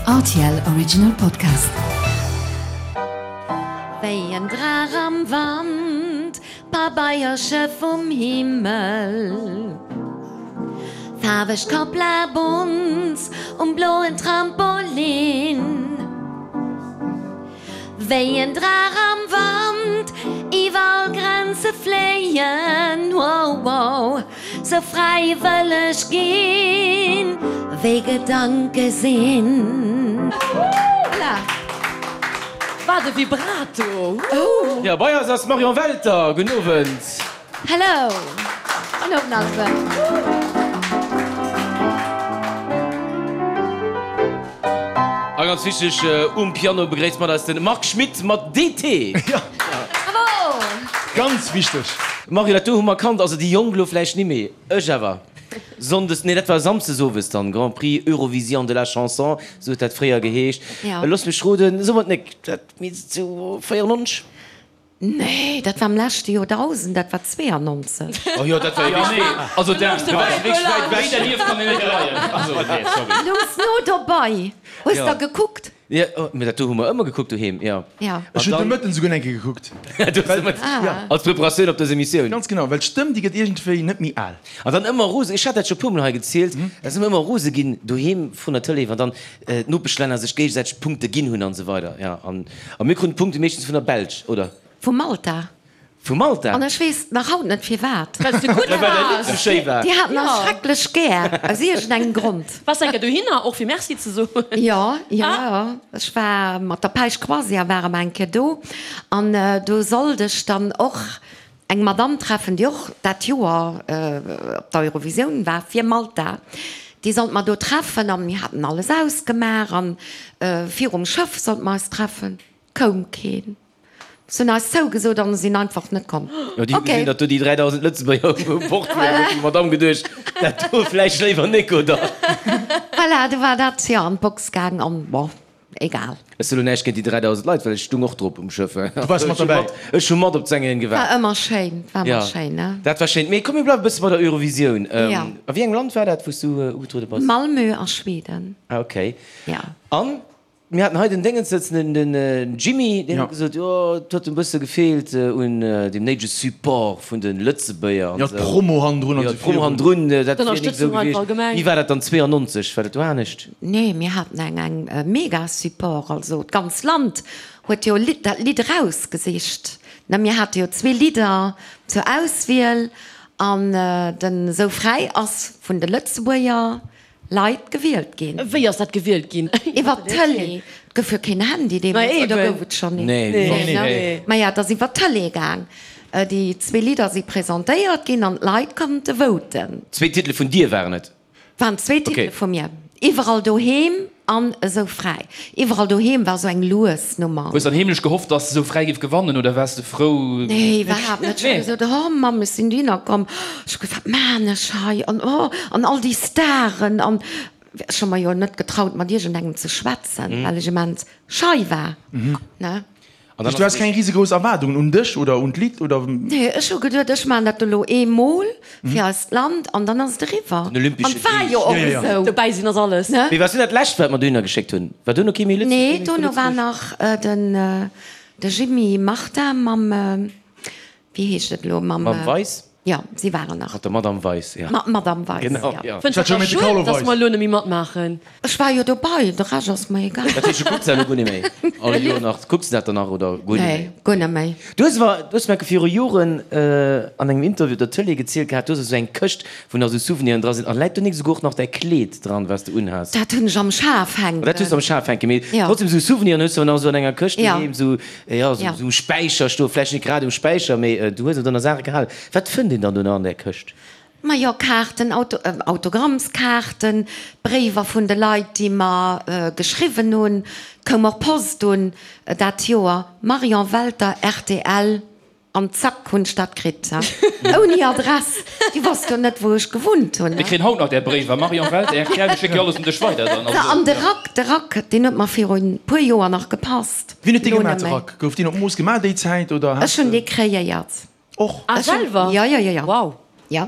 Rtl Original Podcast. Wéi en Draach am Wand, Pabeiersche vum Himmel, Faarweg Kapla Bonz um bloen Trampolin. Wéi en Draach am Wand, iwwer all Grenze fléien, wow, wow, sou fräi wëll ech ginn, wéi Gedanke sinn. Voilà! Wat e Vibrato! Ooh! Jo, bei eis ass d'Marion Welter. Gudden Owend. Hello! Gudden Owend alleguer. A ganz wichteg, um Piano begréisst mat eis de Marc Schmitt mat DT. Bravo! Ganz wichteg. Mario, dat do hu mer kannt, also déi Jonk elo vläicht nimméi, ech awer. Sonndes, nee dat war Samsdes owes dann, Grand Prix Eurovision de la Chanson, sou huet dat fréier geheescht. Looss mech roden, so mer et nek, dat misst sou 94? Nee, dat war am leschte Joerdausend, dat war 92. Oh jo, dat war jo wierklech, also dat war wierklech wäit ewech. Wéi dernieft kann een net leien. Also, nee, sorry. Louchs no dobei. Hues der gekuckt? Jo, mee dat do hu mer ëmmer gekuckt doheem, jo. Jo. Ech hunn de Mëtten esouguer eng Kéier gekuckt. Du hues de Mëtten, als Preparatioun op dës Emissioun. Ganz genau, well d'Stëmm, déi gëtt iergendwéi net méi al. An dann ëmmer rose, ech hat dat scho puermol hei gezielt, da si mer ëmmer rose ginn doheem vrun der Tëlee, wann dann d'Nopeschlänner sech géigesäiteg Punkte ginn hunn an esou weider. Jo, an a mir kruten d'Punkte meeschtens vun der Belsch, oder? Vu Malta. Vu Malta? An ech weess nach haut net firwat. Well s de gutt Well däi Lidd waars. sou schéi war. Déi haten eis schrecklech gär, aus iergendengem Grond. Waars de eng Kéier dohinner, och fir Merci ze soen? Jo, jo, jo. Ech war mat der Päisch Croisière ware mer eng Kéier do an do sollt ech dann och eng Madame treffen, déi och dat Joer op der Eurovisioun war fir Malta. Déi sollt mer do treffen an mir haten alles ausgemaach an virum Schëff sollte mer eis treffen. Koum keen. Se hunn eis zougesot an sinn einfach net komm. Jo, déi hu gesinn, datt do déi 3.000 Lëtzebuerger u Bord waren, huet déi Madame geduecht, dat do vläicht léiwer nik, oder? Voilà, du war dat jo an d'Box gaang an bon, egal. Ech soe lo näischt géint déi 3.000 Leit, well ech stung och drop um Schëff. Du waars mat derbäi? Ech hu mat op d'Sängerin gewaart. War ëmmer schéin, war ëmmer schéin, ne? Dat war schéin. Mee komm, mir bleiwe e bësse bei der Eurovisioun. Jo. A wéi engem Land war dat, wou s du ugetruede bass? Malmö a Schweden. Ah, okay. Jo. An Mir haten hei den Déngens sëtzen, den Jimmy, deen huet gesot, jo, et huet en bësse gefeelt un deem néidege Support vun de Lëtzebuerger an esou. Jo, d'Promo hannendrun an esou. Jo, d'Promo hannendrun, dat wier nik esou gewiescht. Wéi war dat dann 92? War dat do anescht? Nee, mir haten eng eng mega Support, also d'ganz Land huet jo dat Lidd erausgesicht, ne. Mir hate jo zwee Lidder zur Auswiel an den Sou fräi ass vun de Lëtzebuerger Leit gewielt ginn. Wéi ass dat gewielt ginn? Iwwer d'Tëlee. Et gouf jo keen Handy deemools, oder gouf et schonn een? Nee. Maja, et ass iwwer d'Tëlee gaang. Déi zwee Lidder si presentéiert ginn an d'Leit konnte voten. Zwee Titele vun dir waren et? Waren zwee Titele vu mir. Iwwerall doheem an Esou fräi. Iwwerall doheem war esou eng lues Nummer. Hues dann heemlech gehofft, dass Esou fräi géif gewannen oder waars de frou? Nee, iwwerhaapt net. Ech hu gesot, oh Mamm, ech sinn dohinner komm, ech hu gesot, wat maan ech hei an oh an all déi Staren an ech hu mer jo net getraut mat iergendengem ze schwätzen, well ech immens schei war, ne. An dann Du ass has keng risegrouss Erwaardungen un dech oder un d'Lidd oder? Nee, ech hu geduet, ech maachen dat elo eemol fir eist Land an dann ass et eriwwer. Den olympesche An et war jo och esou. Dobäi sinn ass alles. Ne? Mee war du dat lescht, wat mer dohinner geschéckt hunn? War duerno kee méi Lëtzebuerg? Nee, dono war nach den de Jimmy Martin mam, wéi heescht et elo, mam. Mam Weis? Jo, si waren nach. Mat der Madame Weis, jo. Mat Madame Weis, Genau, jo. jo. Fënns du dat da schued, dass mer elo net méi matmaachen? Ech war jo dobei, de Rescht ass mer egal. Dat heescht, du kucks dat elo guer net méi? All Joer nach? Kucks du dat dann nach oder guer net méi? Nee, guer net méi. Du hues awer, du hues mer viru Joren an engem Interview op der Tëlee gezielt gehat, du hues esou eng Këscht, wou nach esou Souveniren dra sinn. A läit do nik esouguer och nach däi Kleed dran, wat s de unhas? Dat hunn ech am Schaf hänken. Dat hues du am Schaf hänken, mee trotzdem esou Souveniren hues du awer nach esou an enger Këscht doheem, esou. Jo, sou um Späicher stoen, vläicht net grad um Späicher, mee du hues et ënner Saache gehalen. Wat fënnt een dann do nach an där Këscht? Majo, Kaarten, Autogrammskaarten, Bréiwer vun de Leit, déi mer geschriwwen hunn. Et koum och Post un dat Joer, Marion Welter, rtl, an zack hunn ech dat kritt, ouni Adress. Déi wosst jo net, wou ech gewunnt hunn. Mir kréien haut nach där Bréiwer, Marion Welter, rtl, mir schécke jo alles un dech weider dann. An de Rack, de Rack, deen huet mer viru puer Joer nach gepasst. Wien huet dee gemaach, de Rack? Gouf deen op Mooss gemaach déi Zäit oder Ech hunn dee kreéiert. Och? Ah, selwer? Jo, jo, jo, jo. Wow. Jo,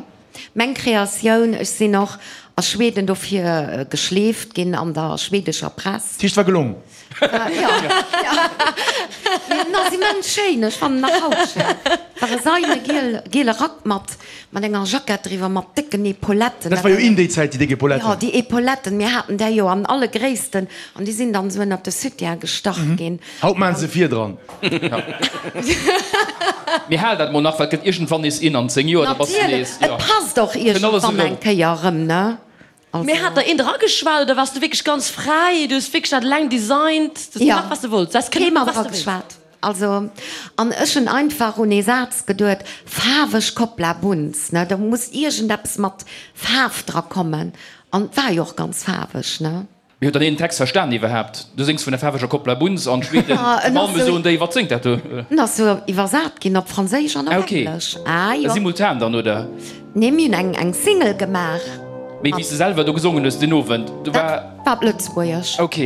meng Kreatioun. Ech sinn och. A Schweden dofir geschleeft ginn an der schwedescher Press. Dat heescht, war gelong? Jo, jo. Mee en ass immens schéin, ech fannen en nach haut schéin. War e seine giel, giele Rack mat, mat enger Jackett driwwer, mat décken Epauletten. Dat war jo in déi Zäit, déi déck Epauletten. Jo, déi Epauletten, mir haten där jo an alle Gréissten an déi sinn dann esou ënnert de Soutien gestach ginn. Haut maachen se vir dran. Mee hal dat mol nach, well et gëtt iergendwann nees in an 10 Joer, da bass de nees, jo. Et passt och iergendwann eng Kéier erëm, ne? Also. Mee hat der een drageschwat oder waars du wierklech ganz fräi? Du hues wierklech dat eleng designt, du hues gemaach wat s de wollts, du häss kënne Kee maachen mat wat s de wéilst. drageschwat. Also, an ech hunn einfach un ee Saz geduet, faarweg Koppla Bunz, ne, do muss iergendeppes mat Faarf dra kommen. An et war jo och ganz faarweg, ne? Mee huet dann een den Text verstan iwwerhaapt? Du séngs vun der faarweger Koppla Bunz an d'Schweden zu Malmö soen déi, wat séngt dat do? En ass sou iwwersat ginn op Franséisch an op Englesch. Ah jo. Simultan dann, oder? Nee, mir hunn eng eng Single gemaach. Mee wéi s de selwer do gesongen hues deen Owend, do war. Dat war op Lëtzebuergesch. Ok.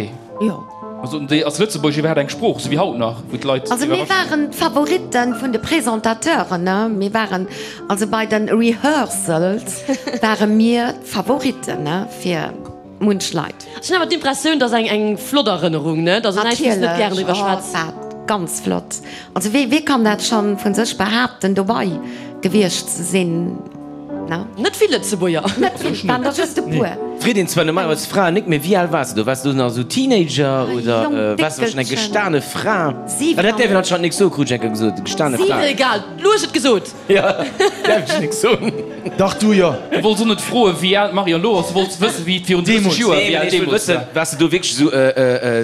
Jo. Also soten déi, ass Lëtzebuergesch iwwerhaapt eng Sprooch, sou wéi haut nach, wou d'Leit. Also mir waren d'Favoritten vun de Presentateuren, ne. Mir waren, also bei den Rehearsals ware mir d'Favoritten, ne, fir. Munch Leit. Ech hunn awer d'Impressioun, dass eng eng flott Erënnerung, ne? Dass näischt, wou s de net gären driwwer schwätz. Natierlech, oh, ganz flott. Also wee, wee kann dat schonn vun sech behaapten, dobei gewiescht ze sinn, ne? Net vill Lëtzebuerger. Net vill, et waren der just e puer. Freet een zwar normalerweis Fraen nik, mee wéi al waars de do? Waars de do nach esou Teenager oder waars de schonn eng gestane Fra? Ah, dat däerf een anscheinend nik soen, krut ech eng Kéier gesot, gestane Fra. Egal, du hues et gesot. Jo, däerf ech nik soen. Dach, du jo. Du wollts och net froen, wéi al d'Marion elo ass, du wollts wëssen, wéi et virun 30 Joer, wéi al deemools war. Waars de do wierklech esou,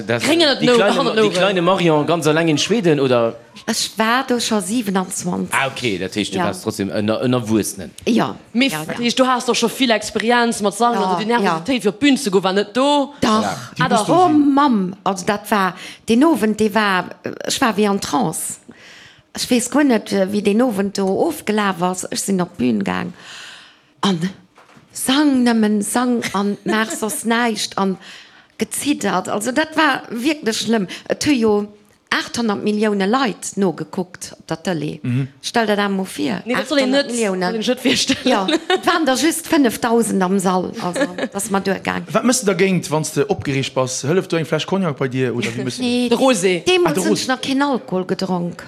déi kleine Marion ganz alleng in Schweden, oder? Ech war do scho 27. Ah ok, dat heescht, du waars trotzdem en Erwuessenen. Jo. Mee dat heescht, du has och scho vill Experienz mat Sangen, also déi Nervositéit fir op d'Bün ze goen war net do? Dach, oh Mamm, also dat war, deen Owend, dee war, ech war wéi an Trance. Ech weess guer net, wéi deen Owend do ofgelaf ass. Ech sinn op d'Bün gaang an sang nëmmen, sang an maach soss näischt an geziddert. Also dat war wierklech schlëmm. Et hu jo 800 Millioune Leit nogekuckt op der Tëlee. Stell der dat emol vir, 800 Milliounen. Jo, et waren der just 5.000 am Sall. Also et ass mer duergaang. Wat méchs de dergéint, wann s de opgereegt bass? Hëlleft do eng Fläsch Cognac bei dir oder wéi méchs de dat? Nee, De Rosé. Deemools hunn ech nach keen Alkohol gedronk.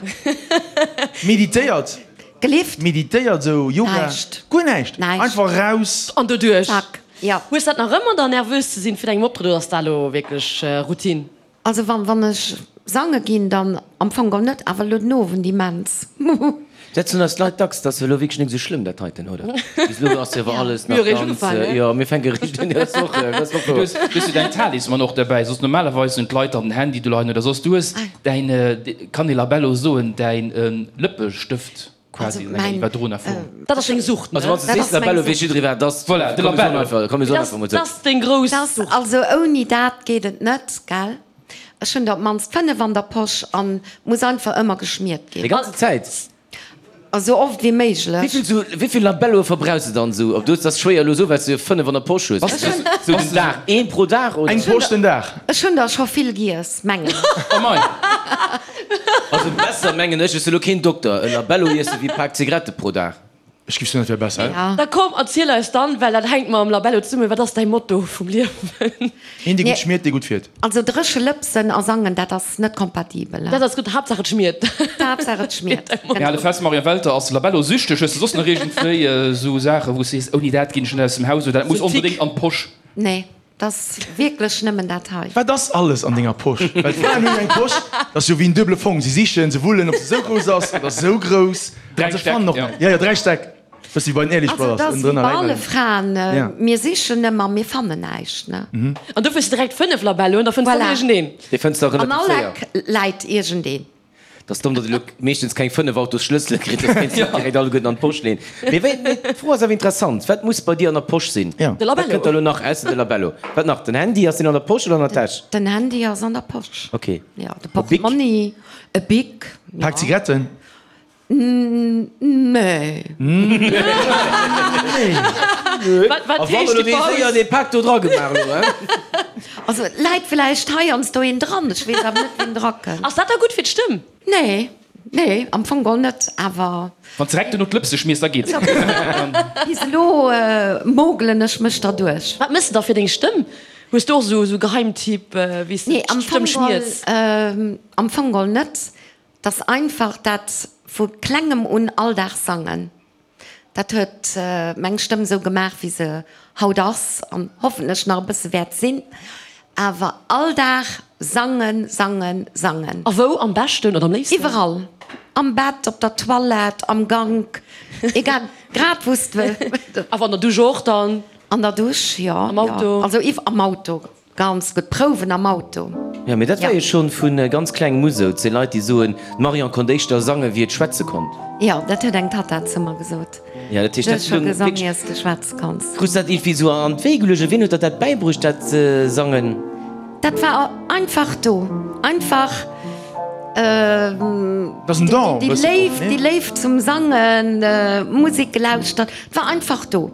Meditéiert? Gelift? Meditéiert, esou Yoga? Näischt. Guer näischt? Näischt. Einfach raus? An doduerch? Zack, jo. Hues dat nach ëmmer dann, nervös ze sinn fir engem Optrëtt oder ass dat elo wierklech Routine? Also wann wann ech sange ginn, dann am Fong geholl net, awer elo den Owend immens. Dat soen eis d'Leit dacks, dat ass elo wierklech net esou schlëmm dat heiten, oder? Bis elo ass jo awer alles nach ganz, jo mir fänke eréischt un, dat ass och, dat ass och Du wouer. hues, du hues jo däin Talisman och derbäi, soss normalerweis hunn d'Leit dann den Handy do leien oder soss. Du hues däin, kann ee Labello soen, däin Lëppestëft quasi an enger iwwerdroener Form. Dat ass deng Sucht, ne? Also wann s de sees Labello, weess jidderee wat et ass. Voilà, de Labello. Komm mir soen einfach mol Dat esou. ass deng grouss Sucht. Also ouni dat geet et net, gell? Ech hunn der op d'mannst 5 an der Posch an muss einfach ëmmer geschmiert ginn. Déi ganze Zäit? Esou oft wéi méiglech. Wéivill sou, wéivill Labelloe verbrauchs de dann sou? Ob du hues, dat ass schwéier elo sou, well s de jo 5 an der Posch hues. Sou den Dag, een pro Dag oder? Eng Posch den Dag. Ech hunn der scho vill giess, mengen ech. Oh mei. Also besser mengen ech, ech si lo keen Dokter, e Labello iesse wéi e Pak Zigarette pro Dag. Ech giff soen, dat wär besser. Ja. Da komm, erziel eis dann, well dat hänkt mam Labello zesummen, wat ass däi Motto vum Liewen? Een dee gutt schmiert, dee gutt fiert. Also dréche Lëpsen a sangen, dat ass net kompatibel. Dat ass gutt, Haaptsaach et schmiert. Haaptsaach et schmiert, Mir hale genau. fest, Marion Welter ass Labello-süchteg. Hues de soss nach iergendwéi esou Saachen, wou s sees, ouni dat ginn ech net aus dem Haus oder dat muss onbedéngt an d'Posch? Nee. 't ass wierklech nëmmen dat hei. Wat ass alles an denger Posch? Well d'Fraen hunn eng Posch, dat ass jo wéi en duebele Fong. Si sichen, se wullen, ob se esou grouss ass oder esou grouss. Dräi An se Stäck, fannen och ja. näischt. Jo, jo, dräi Stäck. Bëssi wéi bei den Ehrlich Also, Brothers, et ass wéi ënnendrënner bei läit alle nach een. Fraen, Ja. mir sichen ëmmer, mir fannen näischt, ne? An dofir hues de direkt 5 Labelloen, da fënns de Voilà. iergendeen. Dee fënns de och An relativ all séier. Eck läit iergendeen. 't ass domm, datt ee lo meeschtens keng 5 Autosschlëssele kritt, soss kéints de se direkt alleguerten an d'Posch leen. Mee wéi, mee d'Fro ass awer interessant, Wat muss bei dir an der Posch sinn? Ja. De Wat Labello. kënnt da lo nach ausser de Labello? Wat nach? Den Handy, ass deen an der Posch oder an der Täsch? Den Handy ass an der Posch. Ok. Ja, de E Bic? Portmonni, e Bic, ja. Pak Zigaretten? Nee. Wat, wat A wann heescht elo déi dee séier Paus? dee Pak do dra gemaach elo, hein? Also et läit vläicht heiansdo een dran, ech weess awer net wien dra kënnt. Ass dat da gutt fir d'Stëmm? Nee. Nee, am Fong geholl net, awer. Wann s direkt duerno d'Lëpse schmiers, da geet et. Bis elo mogelen ech mech derduerch. Wat mëss de da fir deng Stëmm? Hues du och esou Geheimtipp, wéi s de d'Stëmm schmiers? Nee, am Fong geholl net. 't ass einfach dat vu klengem un all Dag sangen. Dat huet meng Stëmm esou gemaach, wéi se haut ass an hoffentlech nach e bësse wäert sinn. Awer all Dag sangen, sangen, sangen. A wou am beschten oder am léifsten? Iwwerall. Am Bett, op der Toilette, am Gank, egal, grad wou s de. Awer an der Dusch och dann? An der Dusch, jo. Am Auto? Also am Auto. Ganz gutt Prouwen am Auto. Jo, mee dat war jo schon vu ganz klengem u sou. Et si Leit, déi soen, d'Marion konnt éischter sange wéi et schwätze konnt. Jo, dat huet eng Tatta zu mer gesot. Jo, dat heescht, Du hues scho gesong, iers de schwätze konns. Krus dat iergendwéi sou an d'Wéi geluecht oder wien huet der dat bäibruecht, dat Sangen? Dat war einfach do. Einfach déi Léift, déi Léift zum Sangen, Musek gelauschtert, et war einfach do.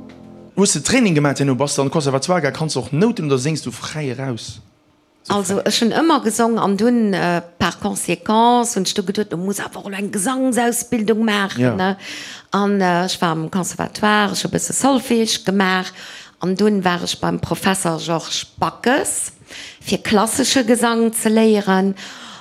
Hues de Training gemaat herno? Bass de an de Conservatoire gaang? Kanns de och Nouten oder séngs du fräi eraus? Also ech hunn ëmmer gesong an dunn par conséquence hunn ech du geduet, du muss awer och elo eng Gesangsausbildung maachen ne. An ech war am Conservatoire, ech hu e bësse Solfège gemaach an dunn war ech beim Professer Georges Backes fir klassesche Gesang ze léieren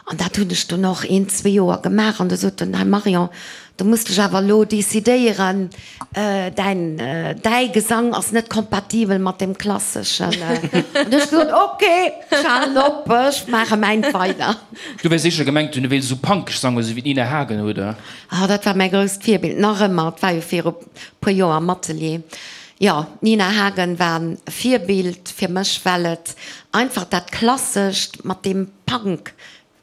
an dat hunn ech dunn och een, zwee Joer gemaach an du sot en, hei Marion, du muss dech awer elo decidéieren, Däin, däi Gesang ass net kompatibel mat deem klasseschen. An du hues gesot, ok, ech halen op, ech maache mäint weider. Du wäers sécher gemengt hunn, du wéilst esou punkeg sangen, esou wéi d'Nina Hagen, oder? Ah, dat war mäi grousst Virbild, nach ëmmer. Et war jo viru puer Joer am Atelier. Jo, d'Nina Hagen war e Virbild fir mech, well et einfach dat Klassescht mat deem Punk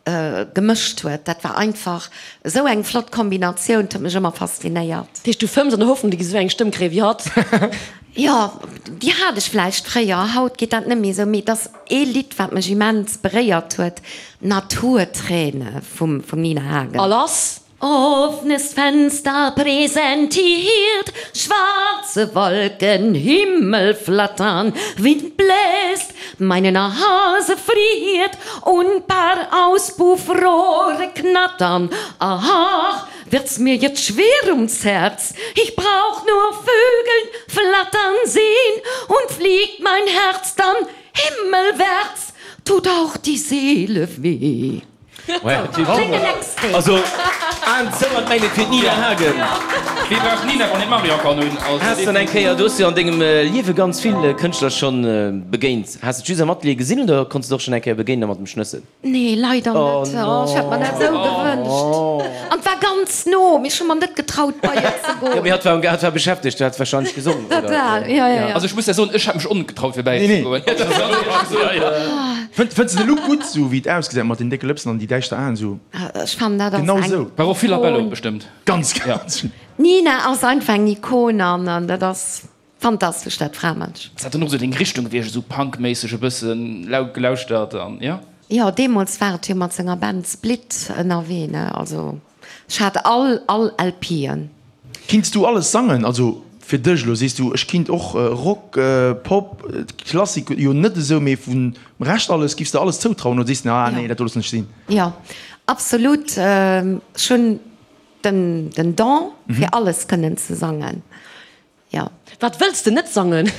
Gemëscht huet. Dat war einfach esou eng flott Kombinatioun, 't huet mech ëmmer faszinéiert. Dat heescht du fëmms an der Hoffnung, du giss esou eng Stëmm kréien wéi hatt? Jo, déi hat ech vläicht fréier, haut geet dat net méi esou, mee et ass ee Lidd wat mech immens beréiert huet, Naturträne vum Nina Hagen. A lass! Offenes Fenster präsentiert schwarze Wolken, Himmel flattern, Wind bläst, meine Nase friert und paar Auspuffrohre knattern. Ach, wird's mir jetzt schwer ums Herz, ich brauch nur Vögeln flattern sehn und fliegt mein Herz dann himmelwärts, tut auch die Seele weh. Also Aen zou an d'Mäin fir d'Nina Hagen. Wee brauch d'Nina, wann een d'Marion kann hunn? Has de eng Kéier, du hues jo an dengem Liewe ganz vill Kënschtler schonn begéint, has de d'Jus am Atelier gesinn oder konns de och schonn eng Kéier begéinen a mat em schnëssen? Nee, leider net. Oh, ech hätt mer dat esou gewënscht. An et war ganz no, mee ech hu mer net getraut bei et ze goen. Jo, mee hatt war hatt war beschäftegt, hat wahrscheinlech gesongen, oder? Total, jo, jo, jo. Also ech muss der soen, ech hätt mech och net getraut fir bäi ze goen. Fënns de de Look gutt sou wéi et ausgesäit mat den décke Lëpsen an déi däischter Aen sou? Ech fannen dat ass Genau eng sou. War och vill Labello bestëmmt. Ganz ganz. D'Nina ass einfach eng Ikon an dat ass fantastesch dat Framënsch. Ass dat dann och sou deng Richtung gewiescht, esou Punk-méisseg e bëssen laut gelauschtert an jo? Jo, deemools war et jo mat senger Band Split ënnerwee ne, also. Ech hat all all LPen. Kinns du alles sangen? Also fir dech elo, sees du ech kinnt och Rock, Pop, Klassik jo net esou, mee vum Rescht alles, giffs de alles zoutrauen oder sees de ah nee dat do loossen ech sinn? Jo absolut, ech hunn den den Don fir alles kënnen ze sangen, jo. Wat wëlls de net sangen?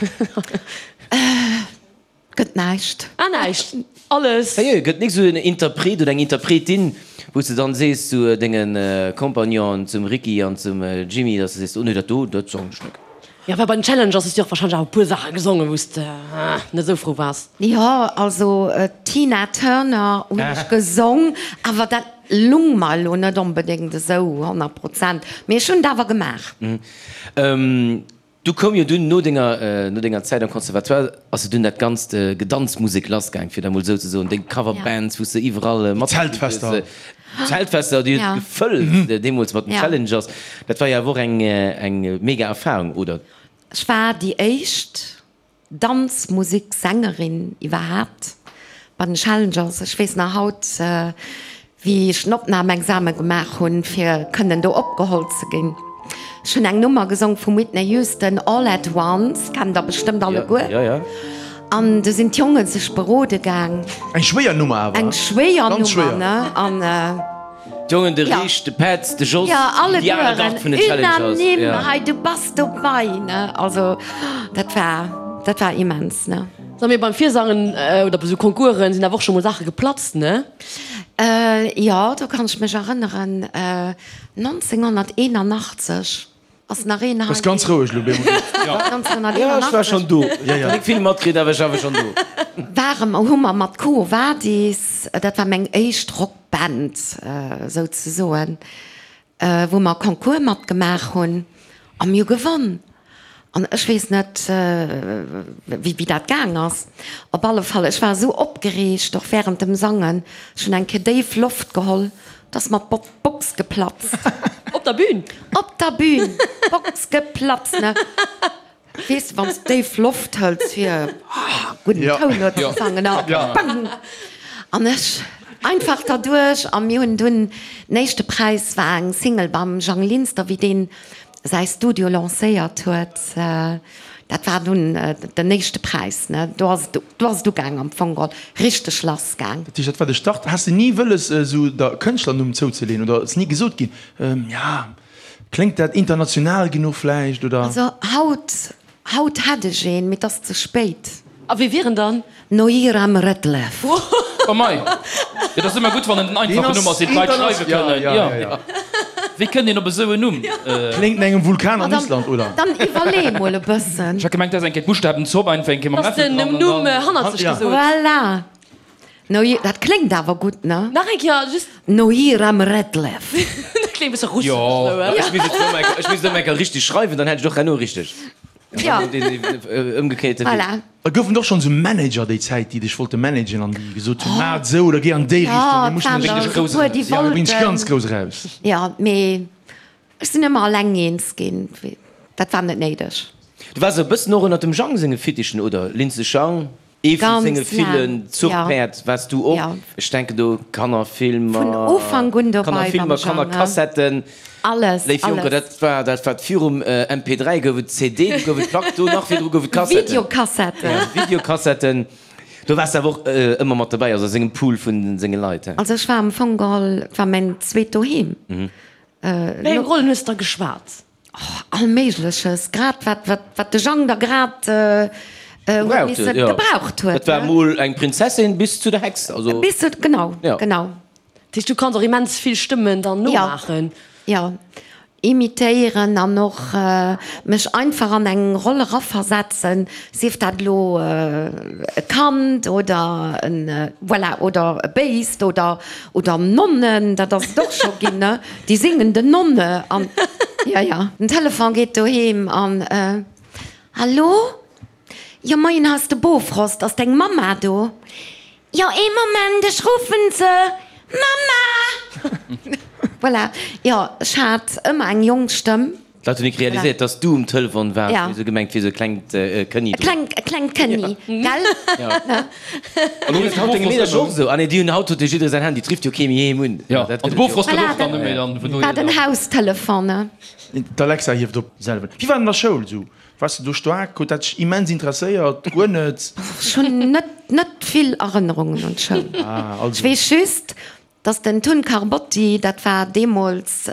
Gëtt näischt. Ah näischt, alles. Sérieux, gëtt nik sou en Interpret oder eng Interpretin, wou s de dann sees zu denge Compagnonen, zum Ricky an zum Jimmy, dass de sees, oh nee, dat do, dat sangen ech nik. Jo, well bei den Challengers hues du och wahrscheinlech awer e puer Saache gesongen, wou s de net esou frou waars. Jo, also Tina Turner hunn ech gesong, awer dat lung mer elo net onbedéngt esou 100 Prozent, mee ech hunn et awer gemaach. Du koum jo dunn no denger, no denger Zäit am Conservatoire ass jo dunn dat ganzt Gedanzmusek lassgaang, fir dat mol esou ze soen, deng Coverbands, wou s de iwwerall matgespillt hues, D'Zeltfester. D'Zeltfester, déi huet gefëllt deemools mat den Challengers. Dat war jo awer och eng, eng mega Erfahrung, oder? Ech war déi éischt Danzmusiksängerin iwwerhaapt bei den Challengers. Ech weess nach haut, wéi ech den Opnamexame gemaach hunn, fir kënnen do opgeholl ze ginn. Ech hunn eng Nummer gesong vum Whitney Houston, All at Once, kennt der bestëmmt alleguer. An du sinn d'Jonge sech berode gaang. Eng schwéier Nummer awer. Eng schwéier Nummer, ne? An. D'Jongen, de Rich, de Petz, de Jos, déi al Gard vun den Challengers. Unanime, hei du bass dobei, ne? Also dat war, dat war immens, ne? Sag mir, beim Virsangen oder bei sou Concoursen sinn awer och scho mol Saache geplatzt, ne? Jo, do kann ech mech erënneren, 1981 ass nach een hei. Bass ganz roueg elo, Bemo. Jo, ech war schonn do. Nik vill matkritt, awer ech war schonn do. Ware mer, hu mer mat Quo Vadis, dat war meng éischt Rockband souzesoen, wou mer e Concours matgemaach hunn a mir hu gewonn. An ech weess net, wéi dat gaang ass. Op alle Fall, ech war esou opgereegt, och wärend dem Sangen, ech hunn eng Kéier déif Loft geholl, da ass mer d'Box geplatzt. Op der Bühn? Op der Bühn! D'Box geplatzt, ne? Weess de, wann s de déif Loft hëls, fir gudden Toun huet ze sangen, a bang! An ech einfach derduerch. A mir hunn dunn, den éischte Präis war eng Single beim Jang Linster, wéi deen säi Studio lancéiert huet, dat war dunn den éischte Präis, ne? Do ass et, do ass et ugaang am Fong geholl, richteg lass gaang. Dat heescht, dat war de Start. Has de ni wëlles esou der Kënschtlernumm zouzeleeën oder ass ni gesot ginn, ja, kléngt dat international genuch vläicht oder? Also haut Haut hätt ech een, mee 't ass ze spéit. A wee wier en dann? Noiram Redlef. Oh mei, et ass ëmmer gutt wann en den einfachen Numm ass, deen d'Leit schreiwe kënnen. Jo. Wéi kënnt een op esou en Numm? Kléngt no engem Vulkan an Island, oder? Dann iwwerlee mol e bëssen. Ech hat gemengt, dat ass eng Kéier d'Buschtabenzopp einfach eng Kéier mam Läffel dran an dann. Numm hannert sech gesot. Voilà. Noi, dat kléngt awer gutt, ne? Nach eng Kéier, just. Noiram Redlef. Dat kléngt e bësse russesch, Jo, esou, ech misst et elo eng, ech misst et elo eng Kéier richteg schreiwen, dann hätt ech et och herno richteg. Jo. Den ëmgekéierte Wee. Voilà. Et goufen och schonn esou Manager déi Zäit, déi dech wollte managen an déi gesot hunn, maach et esou oder géi an déi Richtung, mir mussen Jo, dech. et waren der e puer, déi Jo, mir bréngen dech ganz wollten. grouss eraus. Jo, mee Ech sinn ëmmer alleng eens ginn, dat war net néideg. Du waars e bëssen och ënnert dem Jang senge Fittichen, oder? Lindsay Jang, ee vu senge villen Zuchpäerd waars du och. Ech denken do Kannerfilmer, Vun Ufank un dobei beim Kannerfilmer, Jang, Kannerkassetten. Alles, Léif Jonker, alles. dat war dat wat virum MP3 gouf et CD, du gouf et Plack, do nach virdru gouf et Kassetten. Videokassetten. Videokassetten. Do waars de awer och ëmmer mat dobäi, also a sengem Pool vun senge Leit, he? Also ech war am Fong geholl, et war mäin zweet Doheem. Wéi eng Rollen hues de da geschwat? Oh, all Méigleches, grad wat, wat, wat de Jang da grad huet misse gebraucht huet. Dat war mol eng Prinzessin bis zu der Hex, also. Bis zu, genau, genau. Dat heescht, du kanns och immens vill Stëmmen dann nomaachen? Jo, imitéieren an och mech einfach an eng Roll eraversetzen, sief dat elo e Kand oder en, voilà, oder e Béist oder, oder Nonnen, dat ass et och scho ginn, ne? Déi singende Nonne an, jo, jo. Den Telefon geet doheem an, Hallo? Jo, moien, hei ass de Bofrost, ass deng Mamma do? Jo, ee Moment, ech ruffen se. Mamma! Voilà, jo, ech hat ëmmer eng jonk Stëmm. D'Leit hunn nik realiséiert, dass du um Telefon waars, mee se hu gemengt, et wier esou e klengt Kënni do. E klengt Kënni, gell? Jo. An du rifft haut denge Meedercher och esou? Ah nee, déi hunn haut huet jo jidderee säin Handy, et rifft jo kee méi heem un. Jo, an de Bofrost gëtt och dann net méi dann, vun dohier. War den Haustelefon, ne? D'Alexa hieft op selwer. Wéi war et an der Schoul esou? Waars de do staark? Huet dat dech immens interesséiert? Guer net? Ech hunn net, net vill Erënnerungen un d'Schoul. Ech weess just, dass den Tun Carbotti, dat war deemools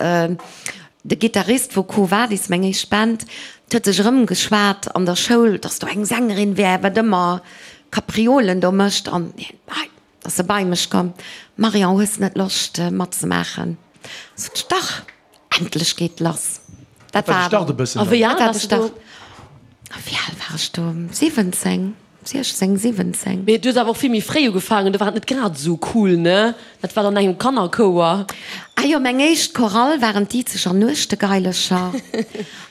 de Gittarist vu Quo Vadis, meng éischt Band, huet sech erëmgeschwat an der Schoul, dass do eng Sängerin wär, wat ëmmer Kapriolen do mécht. An hien, hei, ass e bei mech komm, Marion, hues net Loscht matzemaachen? Sot ech, dach. Endlech geet lass. Dat war de Start e bëssen. A wéi al waars du do? Wéi al war ech do? 17, 16, 17. Mee du hues awer och vill méi fréi ugefaangen, do war et net grad esou cool, ne? Dat war dann engem Kannerchouer. Ah jo, meng éischt Chorale waren d'Izeger Nuechtegeilecher.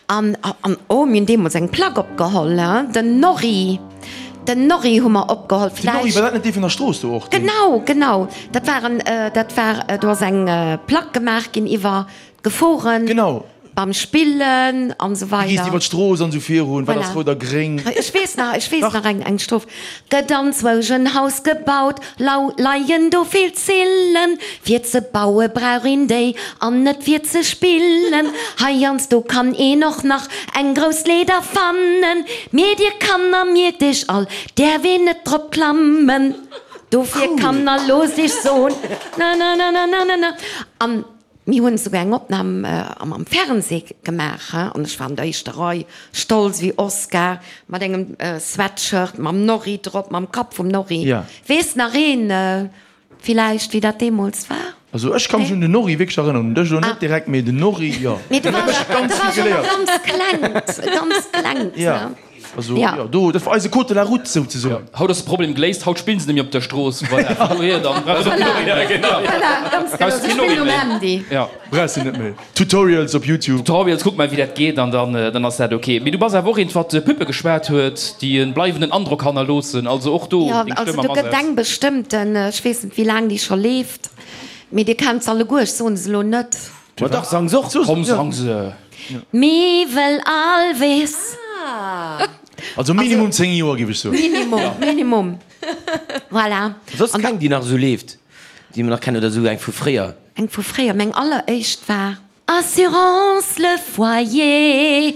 An, an, oh, mir hunn deemools eng Plack opgeholl, he, den Norri. Den Norri hu mer opgeholl. Den Norri, war dat net dee vun der Strooss do och? Genau, genau. Dat war en, dat war, do ass eng Plack gemaach ginn iwwer d'Geforen. Genau. Beim Spillen an esou weider. Wéi gees de iwwer d'Strooss an esou virun, wat ass rout a gréng? Ech weess nach, ech weess nach eng, eng Stroph. Gëtt anzwousch en Haus gebaut, lau leien do vill Zillen. Fir ze baue brauch een déi an net fir ze spillen. Heiansdo kann een och nach eng grouss Leeder fannen. Mee dir Kanner mierkt iech all, däerf een net drop klammen. Dofir Kanner loosst iech soen, na na na na na na na. An mir hunn esouguer eng Opnam am Fernseh gemaach, an ech war an der éischter Rei, stolz wéi Oscar, mat engem Sweatshirt mam Norri drop, mam Kapp vum Norri. Weess nach een villäicht, wéi dat deemools war? Also ech ka mech un den Norri wierklech erënneren, un dech elo net direkt, mee den Norri, jo. Mee du waars jo nach ganz klengt, ganz klengt, ne? Also jo, do, dat war eise Code de la route souzesoen. Haut ass de Problem geléist, haut spillen se nemmi op der Strooss, voilà, vun dohier dann brauchs de och keen Norri méi. Voilà, ganz genau, se spillen um Handy. Brauchs de net méi. Tutorials op YouTube. Tutorials, kuck mol wéi dat geet an dann, dann ass dat ok. Mee du bass awer och eent wat Püppe geschwat huet, déi e bleiwenden Androck hannerloossen, also och do deng Stëmm am Asaz. Jo, also do gëtt eng bestëmmten, ech weess net wéi laang déi scho leeft, mee dir kennt se alleguer, ech soen se elo net. Ma dach, sang se och! Komm, sang se! Miwel Alves. Also minimum 10 Joer giff ech soen. Minimum, minimum. Voilà. Soss keng déi nach esou leeft, déi mer nach kennen oder esou eng vu fréier? Eng vu fréier, meng alleréischt war Assurance le foyer.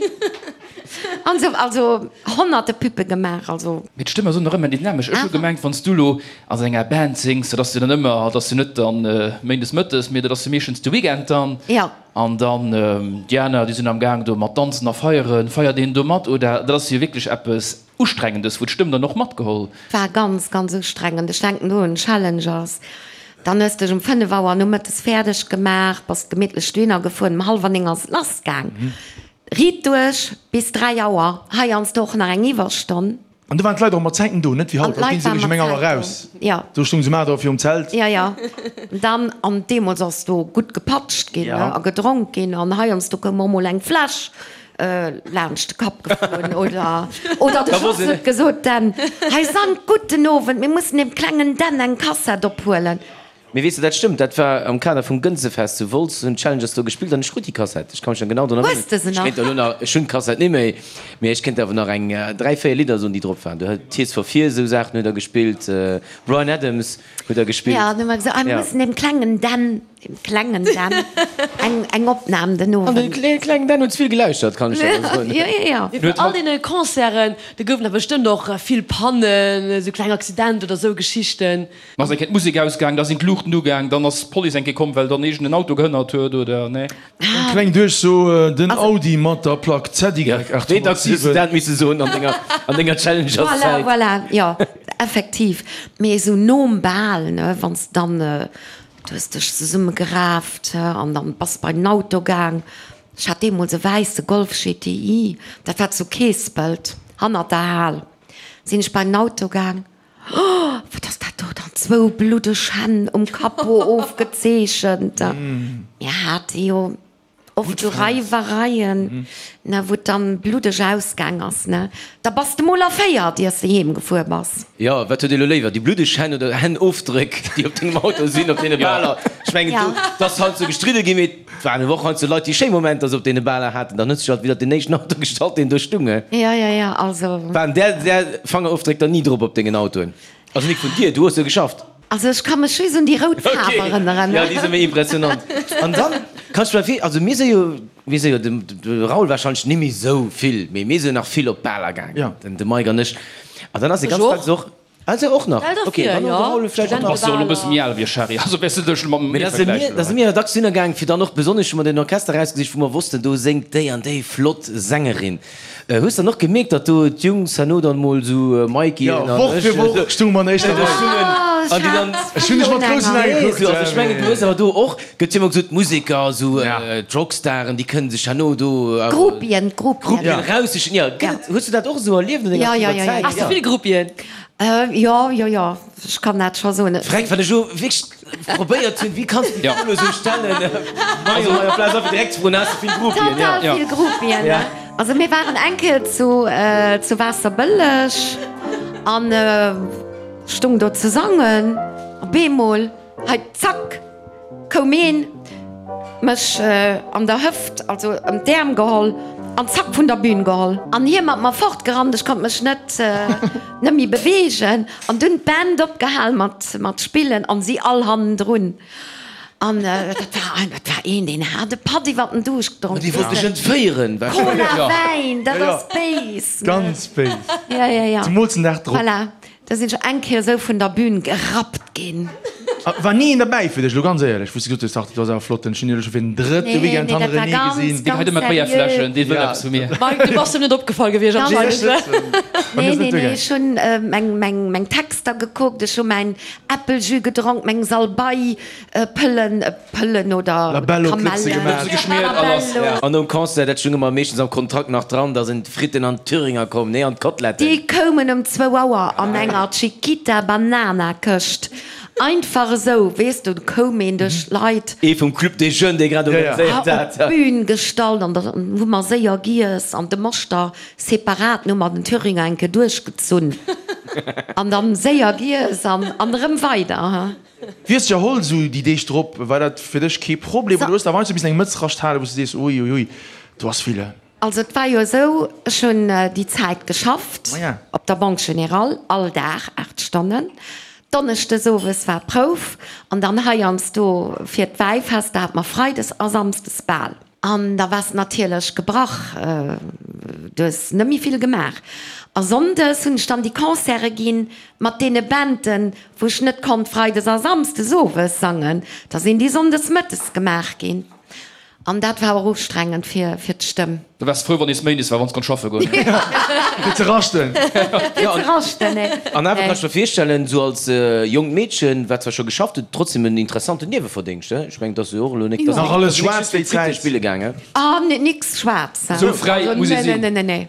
An esou, also honnerte Püppe gemaach, also. Mee d'Stëmm ass och nach ëmmer dynamesch. Ech hu gemengt, wann s du lo a sou enger Band sings, dat ass jo dann ëmmer, dat ass jo net dann méindes mëttes, mee dat ass jo meeschtens de Weekend dann. Jo. An dann déi aner, déi sinn am Gaang do mat danzen a feieren. Feiert een do mat oder dat ass jo wierklech eppes Ustrengendes, wou d'Stëmm dann och matgeholl. War ganz, ganz ustrengend. Ech denken do un Challengers. Dann hues dech um 5 Auer nomëttes fäerdeg gemaach, bass gemittlech dohinner gefuer, um hallwer 9 ass et lass gaang. Riit duerch bis 3 Auer, heiansdo och nach eng Iwwerstonn. An do waren d'Leit och mat Zäiten do, net wéi haut, haut ginn se eréischt um eng Auer raus. Do stoung se um 8 Auer virum Zelt. Jo, jo. Dann, an deemools ass do gutt gepatscht ginn a gedronk ginn an heiansdo koum och mol eng Fläsch laanscht de Kapp geflunn oder, oder de Jos huet gesot, Den, hei sangt gudden Owend, mir mussen dem klengen Dan eng Kassett ophuelen. Mee weess de, dat stëmmt, dat war am Kader vum Gënsefest zu Wolz, hunn d'Challengers do gespillt an ech krut déi Kassett. Ech ka mech nach genau drun erënneren. Hues de se Ech nach? kéint der elo nach, ech hunn d'Kassett ni méi, mee ech kéint der awer nach eng 3, 4 Lidder soen, déi drop waren. Do huet Tears for Fears, esou Saachen huet der gespillt, Bryan Adams huet der gespillt. Ja, dann hu mer gesot, ah, mir mussen dem klengen Dan, dem klengen Dan eng, eng Opnam den An de Owend. klengen Dan huet vill gelauschtert, kann ech der da soen. Jo, jo, jo. Mee vun all deene Concerten, do goufen der bestëmmt och vill Pannen, esou kleng Accidenter oder esou Geschichten. Ass eng Kéier d'Musek ausgaang, da sinn d'Luuchten ugaang, dann ass d'Police eng Kéier komm, well dann iergend en Auto gehënnert huet, oder nee? Eng kleng Duerchso, Den Audi mat der Plack ZY 807. Wéi dacks hues du dat misse soen an denger, an denger Challengers-Zäit? Voilà, voilà, jo, effektiv. Mee esou nom Bal, ne, wann s de dann, du hues dech zesummegeraaft an dann bass bei den Auto gaang. Ech hat deemools e wäisse Golf GTI, dat war zu Keespelt, hannert der Hal, sinn ech bei den Auto gaang. Oh, wat ass dat do dann? Zwou bluddeg Hänn um Capot ofgezeechent. Mir hate jo oft esou Reiwereien, ne, wou et dann bluddeg ausgaang ass, ne. Da bass de mol erféiert, iers de heem gefuer bass. Jo, wat huet ee lo léiwer, déi bluddeg Hänn oder Hännofdréck, déi op dengem Auto sinn, op deene Baler? Ech mengen, do, et ass heiansdo gestridde ginn, mee et waren awer och heiansdo Leit, déi schéi Momenter sou op deene Baler haten. Dann huet sech alt widder den éischten Auto gestallt, deen do stung. Jo, jo, jo, also. Waren där, där Fangerofdréck dann ni drop op dengen Autoen? Also nik vun dir, du hues jo geschafft. Also ech ka mech just un déi rout Faarf erënneren. Jo, déi si méi impressionant. An dann kanns du mer vir, also mir si jo, mir si jo, de Raoul wahrscheinlech ni méi sou vill, mee mir si jo nach vill op d'Baler gaangen, den Mike an ech. An dann ass e ganz dacks och, ah se och nach, ok, dann de Raoul vläicht och nach. Bass jo elo e bësse méi al wéi ech, Harry, also wäers du dech elo mat mir vergläichen. Mee da si mir jo dacks hinner gaang, fir dann och besonnesch hu mer den Orchester erausgesicht, wou mer wossten, do séngt déi an déi flott Sängerin. Hues dann och gemierkt datt do d'Jungs herno dann mol sou Mikey Jo, Woch fir Woch stung mer an éischter Rei. An déi dann. Ech hunn dech mat groussen Ae gekuckt. Also ech mengen du hues awer do och, gëtt jo ëmmer gesot, d'Museker, sou d'Rockstaren, déi kënnen sech herno do. D'Gruppien, d'Gruppien. D'Gruppien raussichen, jo. Gëtt et, hues du dat och esou erlieft an denger aktiver Zäit? Has de vill Gruppien? Jo, jo, jo, ech kann dat scho soen. Fränk, wat ech elo wierklech Probéiert hunn, wéi kanns de déi Fro elo sou stellen? Majo, hei Applaus einfach direkt ze froen, has de vill Groupien? Total vill Groupien, ne? Also mir waren eng Kéier zu zu Waasserbëlleg an stung do ze sangen, op eemol, hei zack, koum een, mech an der Hëft, also ëm d'Äerm geholl an zack vun der Bühn geholl. An hie mat mer fortgerannt, ech konnt mech net net méi beweegen. An dunn d'Band opgehal mat mat spillen an si all hannendrun. An dat war dat war een, deen hat e Patt iwwer den Duuscht gedronk. Dee wollt dech entféieren wahrscheinlech. Cola, Wäin, dat ass béis, ne? Ganz béis. Ja, ja, ja. Zemools den Dag drop. Voilà. Da sinn ech eng Kéier esou vun der Bühn gerappt ginn. War ni een derbäi fir dech, elo ganz éierlech, wou s de gesot hues, Dach, dat ass awer flott, ech hunn iech elo scho fir den drëtte Weekend hannerenee gesinn. Dee geheit ëmmer d'Béierfläschen, dee wëll eppes vu mir. Mike, du bass em net opgefall gewiescht anscheinend. Nee, nee, nee, ech hunn meng Texter gekuckt, ech hu mäin Äppeljus gedronk, meng Salbei Pëllen, Pëllen oder Kamellen. An nom Concert, dat stung ëmmer meeschtens am Kontrakt nach dran, da sinn d'Fritten an d'Thüringer komm, nee, an d'Koteletten. Déi koumen um zwou Auer an enger Chiquita Banana Këscht. Einfach esou, weess du, do koum een duerch d'Leit. Ee vum Club des Jeunes, dee grad organiséiert hat. Op d'Bün gestallt an da hu mer séier giess an de Moschter separat, hu mer den Thüringer eng Kéier duerchgezunn an dann séier giess an erëm weider. Wéi hues de dech erholl esou déi Deeg drop? War dat fir dech kee Problem oder hues de awer heiansdo missen eng Mëtz rascht halen, wou s de sees, ui ui ui, do ass vill? Also et war jo esou, ech hunn déi Zäit geschafft op der Banque Générale, all Dag 8 Stonnen. Donneschdes owes war Prouf an dann heiansdo fir d'Wäifest, da hat mer freides a samsdes Bal. An da waars de natierlech gebrach, du hues net méi vill gemaach. A sonndes hunn ech dann déi Concerte ginn mat deene Banden, wou ech net konnt freides a samsdes owes sangen. Da sinn déi sonndes mëttes gemaach ginn. An dat war och ustrengend fir d'Stëmm. Da waars de frou, wann nees Méindes war, wann s konnt schaffe goen. Fir ze raschten. Fir ze raschten, nee. An awer kann ech mer virstellen, esou als jonkt Meedchen, wat zwar scho geschafft huet, trotzdem en interessanten Nieweverdéngscht, he? Ech mengen, et ass jo och elo nik, dass Nach alles schwaarz déi Zäit. Spille gaangen. Ah, nix schwaarz. Esou fräi muss ee sinn. Nee, nee, nee.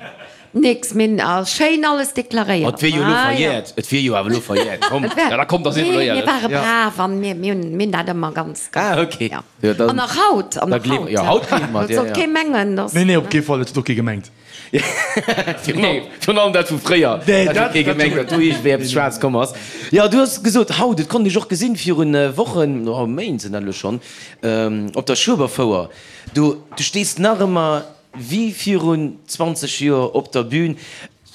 Nix, mir hunn schéin alles deklaréiert. Et wier jo elo verjährt, et wier jo awer elo verjährt, komm. Ja, da kommt, da si mer elo éierlech. Mir ware brav an mir hunn dat ëmmer ganz. Ah, ok. Ja. An nach haut, an nach haut. Jo, haut gleewe mer dir, Et sollt kee mengen, dass. Nee, nee, op kee Fall, dat huet och kee gemengt. Virun allem dat vu fréier, dat huet kee gemengt, datt do iergendwéi eppes schwaarz komm ass. Jo, du hues gesot, haut, et konnt ech och gesinn, virun Wochen, oh, Méint sinn dat elo schonn, op der Schueberfouer, do, du stees nach ëmmer Wéi virun 20 Joer op der Bühn.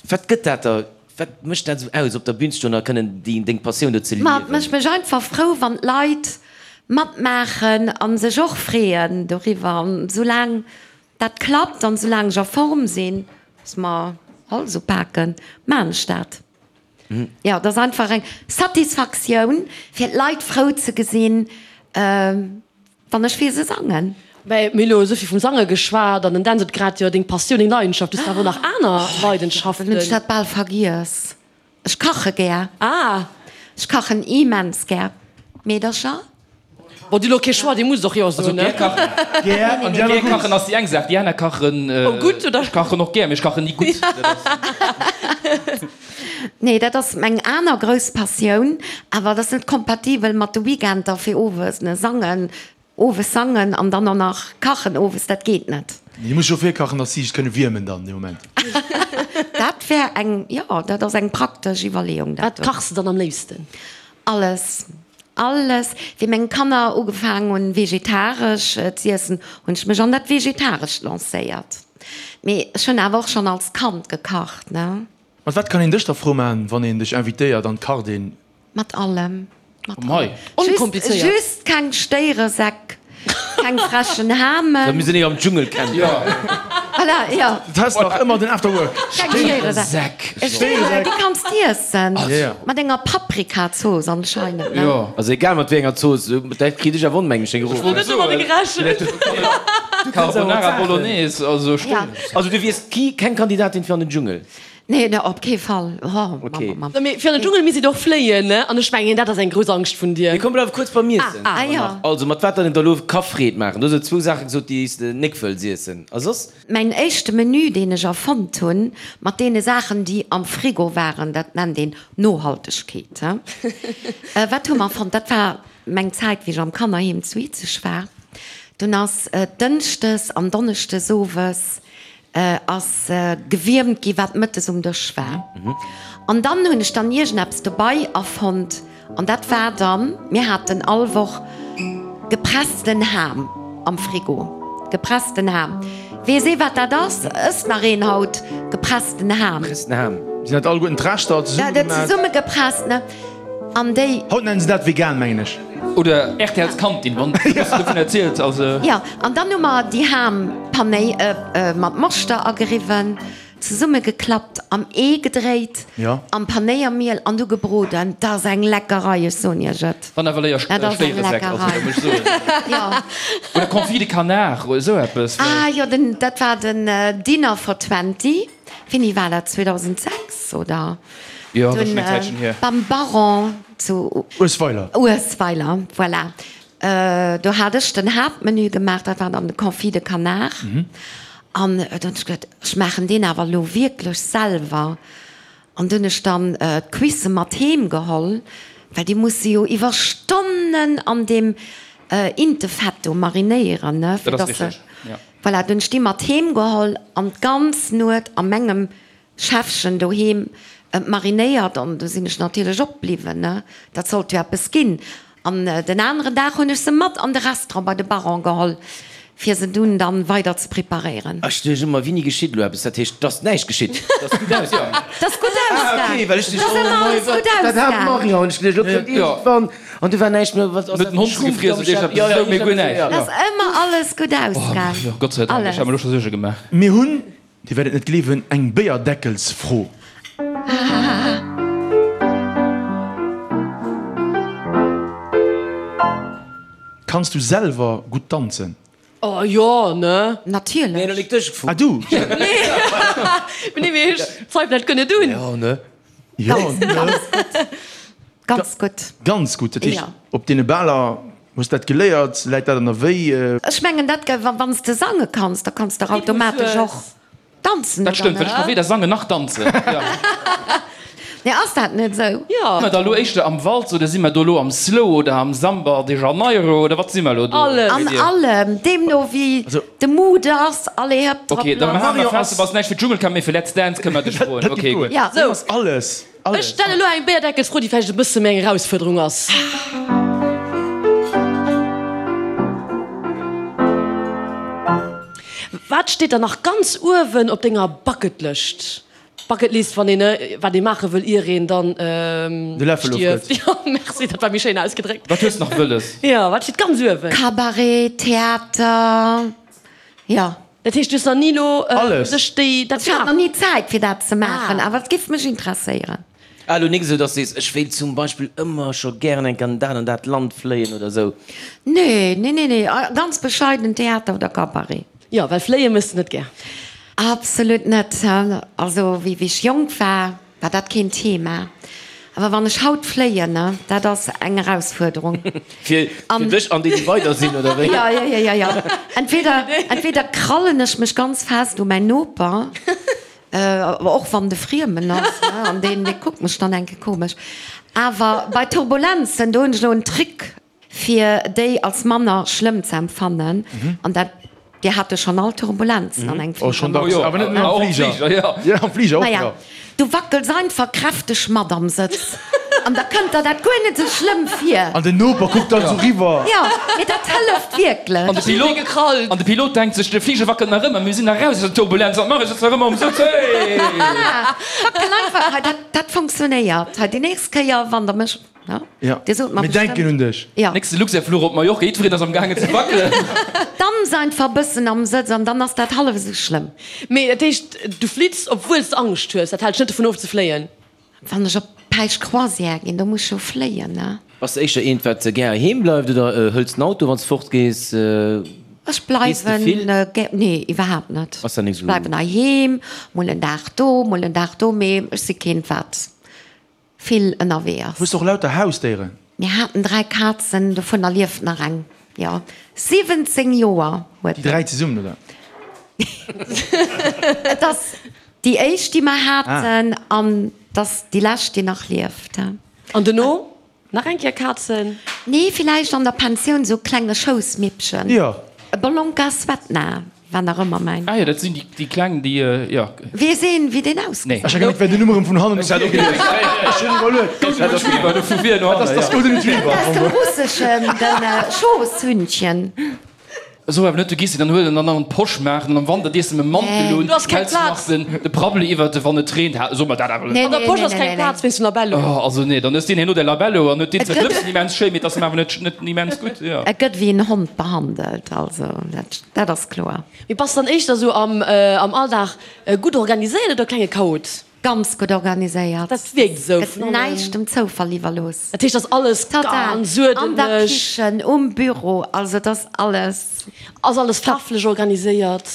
Wat gëtt dat der, wat mécht dat esou aus, op der Bühn ze stoen a kënnen déi deng Passioun do ze Ma et liewen? mécht mech einfach frou, wann d'Leit matmaachen a sech och freeën doriwwer. An soulaang dat klappt an soulaang ech a Form sinn, dass mer Hals upaken, maan ech dat. Jo, et ass einfach eng Satisfaktioun, fir d'Leit frou ze gesinn. Wann ech fir se sangen. Mä mir hu lo esou vill vum Sange geschwat an den Dan sot grad, jo deng Passioun, deng Leidenschaft, du hues awer och nach aner Leidenschaften. Dann hunn ech dat bal vergiess. Ech kache gär. Ah! Ech kachen immens gär. Meedercher? Bon, dir hu lo kee Choix, dir musst och jo soen, ne? Gär kachen, Gär an déi aner gär gutt. kachen ass déi eng Saach, déi aner kachen. Oh gutt, oder? Ech kachen och gär, mee ech kachen ni gutt. Dat ass. Nee, dat ass meng aner grouss Passioun, awer dat ass net kompatibel mat de Weekender fir owes, ne, sangen, owes sangen an dann och nach kachen owes, dat geet net. Dir musst jo virkachen, dass si sech kënne wiermen dann dee Moment. Dat wär eng, jo, dat ass eng praktesch Iwwerleeung, dat Wat do. kachs de dann am léifsten? Alles, alles. Wéi meng Kanner ugefaangen hunn vegetaresch z'iessen, hunn ech mech an dat Vegetarescht lancéiert. Mee ech hunn awer och schonn als Kand gekacht, ne. Mat wat kann een dech da frou man, wann een dech invitéiert an d'Kart een? Mat allem, mat Komm hei. allem. Just, Onkomplizéiert. just keng Stéieresäck, keng frechen Hamen. Da mir sinn am Dschungelcamp. Jo. Voilà, jo. Du has nach ëmmer den Afterwork. Keng Stéieresäck. Stéieresäck. Stéieresäck, déi kanns d'iessen. Ja, ja. Mat enger Paprikazooss anscheinend, ne? Jo. Also egal mat wéi enger Zooss, dat kritt ech awer onmengeg deng Ech wollt Net domadder gerechent. Carbonara Bolognese, also Ja. Stéieresäck. Also du wiers keng Kandidatin fir an den Dschungel? Nee, ne, op kee Fall. Oh, Okay. Mamm, Mamm. Mee fir an den Dschungel misst een och fléien, ne? An ech mengen, dat ass eng grouss Angscht vun dir. Mee komm, bleiwe kuerz beim Iessen. Ah, ah, jo. Also, mat wat dann een der elo ka Freed maachen? Du hues elo zwou Saache gesot, déi s de nek wëlls iessen. A soss? Mäin éischte Menü, deen ech erfonnt hunn, mat deene Saachen, déi am Frigo waren, dat nennt een Nohaltegkeet, he? Wat hu mer erfonnt? Dat war meng Zäit, wéi ech am Kannerheem zu Izeg war. Dunn ass dënschdes an donneschdes owes ass gewiermt gi wat mëttes um Dësch war. An dann hunn ech dann iergendeppes dobei erfonnt an dat war dann, mir haten all Woch gepressten Ham am Frigo, gepressten Ham. Weess ee wat dat ass? Ësst nach een haut gepressten Ham? Gepressten Ham. Sinn dat alleguerten d'Reschter zesummegemat? Zesummegepresst, ne? An déi. Haut nennen se dat vegan, mengen ech. Oder RTL's Kantin, wann du bëssen dovun erziels. Also. Jo, an dann hu mer déi Ham pané mat Moschter ageriwwen. Zesummegeklappt, am Ee gedréit, am Panéiermiel an du gebroden. Dat ass eng Leckerei, ech soen iech et. Wann awer léier Stéieresäck, also da muss ech soen. Oder Confit de Canard oder esou eppes. Ah jo, den, dat war den Dinner for Twenty. Wéini war dat? 2006 oder? Jo, dat ass schonn eng Zäitchen hier. Beim Baron zu. Uesweiler. Uesweiler, voilà. Do hat ech den Haaptmenü gemaach, dat war dann de Confit de Canard. An dunn hunn ech geduet, ech maachen deen awer elo wierklech selwer. An dunn hunn ech dann d'Cuissë mat heem geholl, well déi musse jo iwwer Stonnen an deem Intefett do marinéieren, ne, fir dass se. Voilà, dunn hunn ech déi mat heem geholl an d'ganz Nuet a mengem Schäffchen doheem marinéiert an du sinn ech natierlech opbliwwen, ne, dat sollt jo eppes ginn. An den aneren Dag hunn ech se mat an de Restaurant bei de Baron geholl, fir se dunn dann weider ze preparéieren. Ech duecht ëmmer, wéini geschitt elo eppes? Dat heescht, 't ass näischt geschitt, 't ass gutt ausgaang. 't ass gutt ausgaang. Ah, okay, well ech duecht, oh mei, wat, dat hat d'Marion, hunn ech geduecht, elo kënnt iergendwann an du war näischt méi, wat ass dat, Net den Hond gefriess oder iergendepes, esou, mee guer näischt. 't ass ëmmer alles gutt ausgaang. Oh, Gott sei Dank, ech hat mer elo scho Suerge gemaach. Mir hunn Dir wäert et net gleewen, eng Béierdeckelsfro. Kanns du selwer gutt danzen? Oh jo, ne? Natierlech. Nee, lo nik dech gefrot. Ah du? Nee, mee ech zweifelen, dat kënne dunn. Jo, ne? Jo, ne? Ganz gutt. Ganz gutt, dat heescht op deene Baler hues dat geléiert, läit dat an der Wéi? Ech mengen dat wann s de sange kanns, da kanns de och automatesch och danzen, Dat stëmmt, well ech ka weder sangen nach danzen. Nee, ass dat net esou? Jo. Si mer da lo éischter am Walz oder si mer do lo am Slow oder am Samba de Janeiro oder wat si mer lo do? Alles. An allem, deemno wéi de Mood ass, allez hëpp drop Ok, da lass. maache mer fest, du bass näischt fir d'Dschungelcamp, mee fir Let's Dance kënne mer dech froen. Ok, gutt. Ja. Sou. Alles. Ech stellen elo eng Béierdeckelsfro, déi vläicht e bësse méi eng Erausfuerderung ass. Wat steet dann nach ganz uewen op denger Bucketlëscht? Bucketlist, wann een, wat ee maache wëll, ier een dann stierft. Jo, merci, dat war méi schéin ausgedréckt. Wat hues de nach wëlles? Jo, wat steet ganz uewen? Cabaret, Theater, jo. Dat heescht, du hues nach ni elo sech déi dat Ech hat nach ni Zäit fir dat ze maachen, awer et giff mech interesséieren. Ah, elo nik esou, dass du sees, ech wéilt zum Beispill ëmmer scho gären eng Kéier an dat an dat Land fléien oder esou. Nee, nee, nee, nee, ganz bescheiden Theater oder Cabaret. Jo, well fléie méchs de net gär. Absolut net. Also wéi ech jonk war, War dat keen Thema. Awer wann ech haut fléien, ne, dat ass eng Erausfuerderung. Fir dech an déi, déi weider sinn, oder wéi? Jo, jo, jo, jo, jo. Entweder, entweder krallen ech mech ganz fest u mäin Noper, och wann de Friemen ass, ne, an deen, dee kuckt mech dann enke komesch. Awer bei Turbulenzen, do hunn ech elo en Trick fir déi als manner schlëmm ze empfannen, an dat, Dir hat jo schonn all Turbulenzen an engem Fliger. Oh, schonn dacks, awer net nëmmen am Fliger. Jo, am Fliger och, jo. Du wackels einfach kräfteg mat am Sëtz an da kënnt der dat guer net esou schlëmm vir. An den Noper kuckt dann esou riwwer. Jo, mee dat hëlleft wierklech. An de Pilot, an de Pilot denkt sech, de Fliger wackelt nach ëmmer, mir sinn nach raus aus der Turbulenz, wat maache ech jetzt nach ëmmer um Sëtz, hey! Voilà, wackel einfach, hei, dat, dat funktionéiert. Hei, déi nächst Kéier, wann der mech. Ja, mir denken un dech. Nächste Luxair-Fluch op Mallorca, jiddwereen ass am gaangen ze wackelen. Danz einfach bëssen am Sëtz an dann ass dat hallef esou schlëmm. Mee dat heescht, du flitts, obwuel s de Angscht hues? Dat hält dech net dovun of ze fléien? Wann ech op Päisch-Croisière ginn, do muss ech jo fléien, ne? Bass de éischter eent, wat gär heem bleift oder hëls den Auto, wann s de fort gees? Ech bleiwen gär, nee, iwwerhaapt net. Ech bleiwen heiheem, mol en Dag do, mol en Dag do, mee ech si keent, wat vill ënnerwee ass. Hues de och lauter Hausdéieren? Mir haten 3 Kazen, dovunner lieft nach eng, jo 17 Joer huet. Déi 3 zesummen, oder? Et ass déi éischt déi mer haten an et ass déi lescht déi nach lieft. An dono nach eng Kéier Kazen? Nee, villäicht an der Pensioun sou klenge Schoussmippchen. Jo. E Bolonka Svetna. War nach ëmmer mäin. Ah jo, dat sinn déi kleng, déi, jo. Weess een, wéi deen ausgesäit? Ech hat gemengt, wär den Numm erëm vun hannen op vir gelies. Ech hunn iwwerluet. Golden Retriever, do vu vir no hannen, jo. Dat ass Golden Retriever. Dat ass de russeschen, de Schoosshündchen. Esou awer net, du gees se dann huelen an dann an d'Posch maachen an am Wanter dees de mam Mantel un, Du has keng häls nach Plaz. den de Prabbeli iwwert de wann et reent. Ha, so mer dat awer net. An der Posch ass keng Plaz wéinst dem Labello. Oh, also nee, dann hues deen herno däi Labello an huet deen Et zwar gëtt. d'Lëpsen immens schéin, mee et ass em awer net net immens gutt, jo. Et gëtt wéi en Hond behandelt, also dat dat ass kloer. Mee bass dann éischter esou am am Alldag gutt organiséiert oder klenge Chaot? Ganz gutt organiséiert. Dat wierkt esou. Gëtt näischt dem Zoufall iwwerlooss. Dat heescht, ass alles ganz Total. An der uerdentlech. Kichen, um Büro, also et ass alles. Ass alles faarflech organiséiert?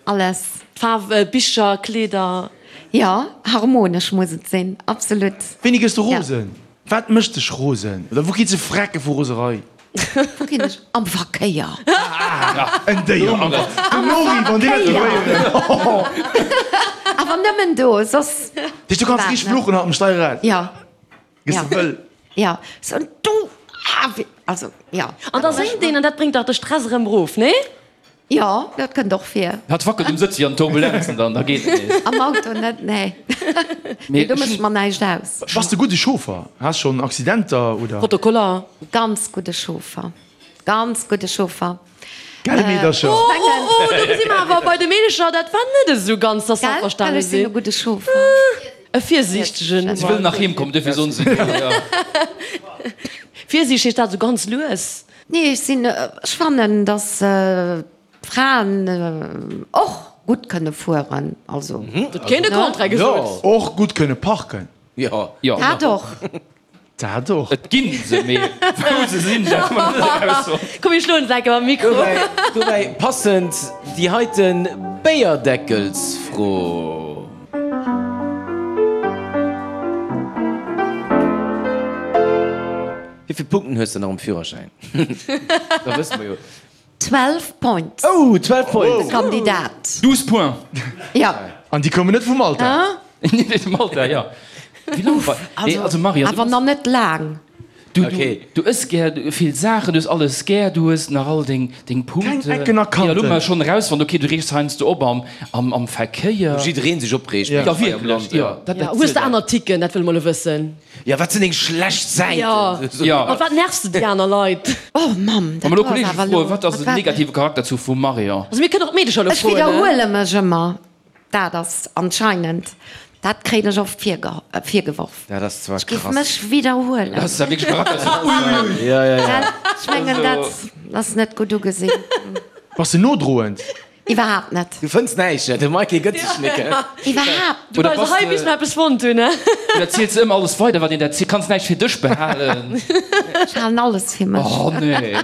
Alles. Faarf, Bicher, Kleeder? Jo, harmonesch muss et sinn, absolut. Wéini gëss de rosen? Wat mécht dech rosen? Oder wou kritt se Frecke vu Roserei? Wou ginn ech? Am Verkéier. En Déier am Den Nori, wann deen dat héieren. Awer nëmmen do, soss. Du kanns richteg fluchen haut um Steierrad. Jo. Gëss de wëll. Jo. So, du, ah, also, jo. An da séngt een an dat bréngt dach de Stress erëm erof, nee? Jo, dat kënnt och vir. Hat wackelt um Sëtz wéi an Turbulenzen dann, da geet et nees. Am Auto net, nee. Mee do mécht mer näischt aus. Bass de gudde Chauffer? Has schonn Accidenter oder? Protokoller? Ganz gudde Chauffer, ganz gudde Chauffer. Gell Meedercher? Oh, oh, oh, do si mer awer bei de Meedercher, dat war net esou ganz, dass se Gell, well averstane ech sinn e sinn. gudde Chauffer. E virsiichtegen. Si wëllen nach heem kommen, duerfir soen se jo, jo. Virsiichteg heescht dat esou ganz lues? Nee, ech sinn, ech fannen, dass d'Fraen och gutt kënne fueren, also. Huet keen de Contraire gesot. Och gutt kënne parken. Jo. Dat och. Dat och. Et ginn se, mee wou se sinn, dat hu mer net erausfonnt. Komm mir schloen se enke mam Mikro. Dobäi passend déi heiten Béierdeckelsfro. Wéi vill Punkten hues de nach um Führerschäin? Da wësse mer jo. 12 Points. Oh, 12 Points! De Kandidat. 12 Points! Ja. An déi koumen net vu Malta? Net vu Malta, jo. Wéi laang war. Nee, also Marion, Awer nach net laang. Du, du ëss gär vill Saachen, du hues alles gär, du hues nach all deng, deng Punkten. Keng Ecken a Kanten. Jo, elo hu mer schonn erausfonnt, okay, du reegs heiansdo op am, am, am Verkéier. Wou jidderee sech opreegt. Ja, wierklech, jo. Dat, dat Hues de aner Ticken? Dat wëlle mer elo wëssen. Jo, wat sinn deng schlecht Säiten? Jo, mat wat nervs de déi aner Leit? Oh Mamm, Wa dat mer elo ass Kolleege awer froen, elo, wat ass wat den war negative Charakterzuch vum Marion? Also mir kënnen och d'Meedecher elo Ech froen, ne? widderhuele mech ëmmer, dat ass anscheinend, dat kréien ech oft virgeworf. Dat ass zwar Ech géif krass. mech widderhuelen. Dat ass wierklech e Charakterzuch, ui! Ja, ja, ja. Gell? Ech mengen, dat ass net gutt ugesinn. Bass de nodroend? Iwwerhaapt net. Du fënns näischt, ne? De Mikey gëtt sech nik, he? Iwwerhaapt. Du Oder bei bass hei de- bis mer eppes fonnt hunn, ne? Oder ziels de ëmmer alles weider, wat een der zielt? Kanns näischt fir dech behalen? Ech halen alles fir mech. Oh nee.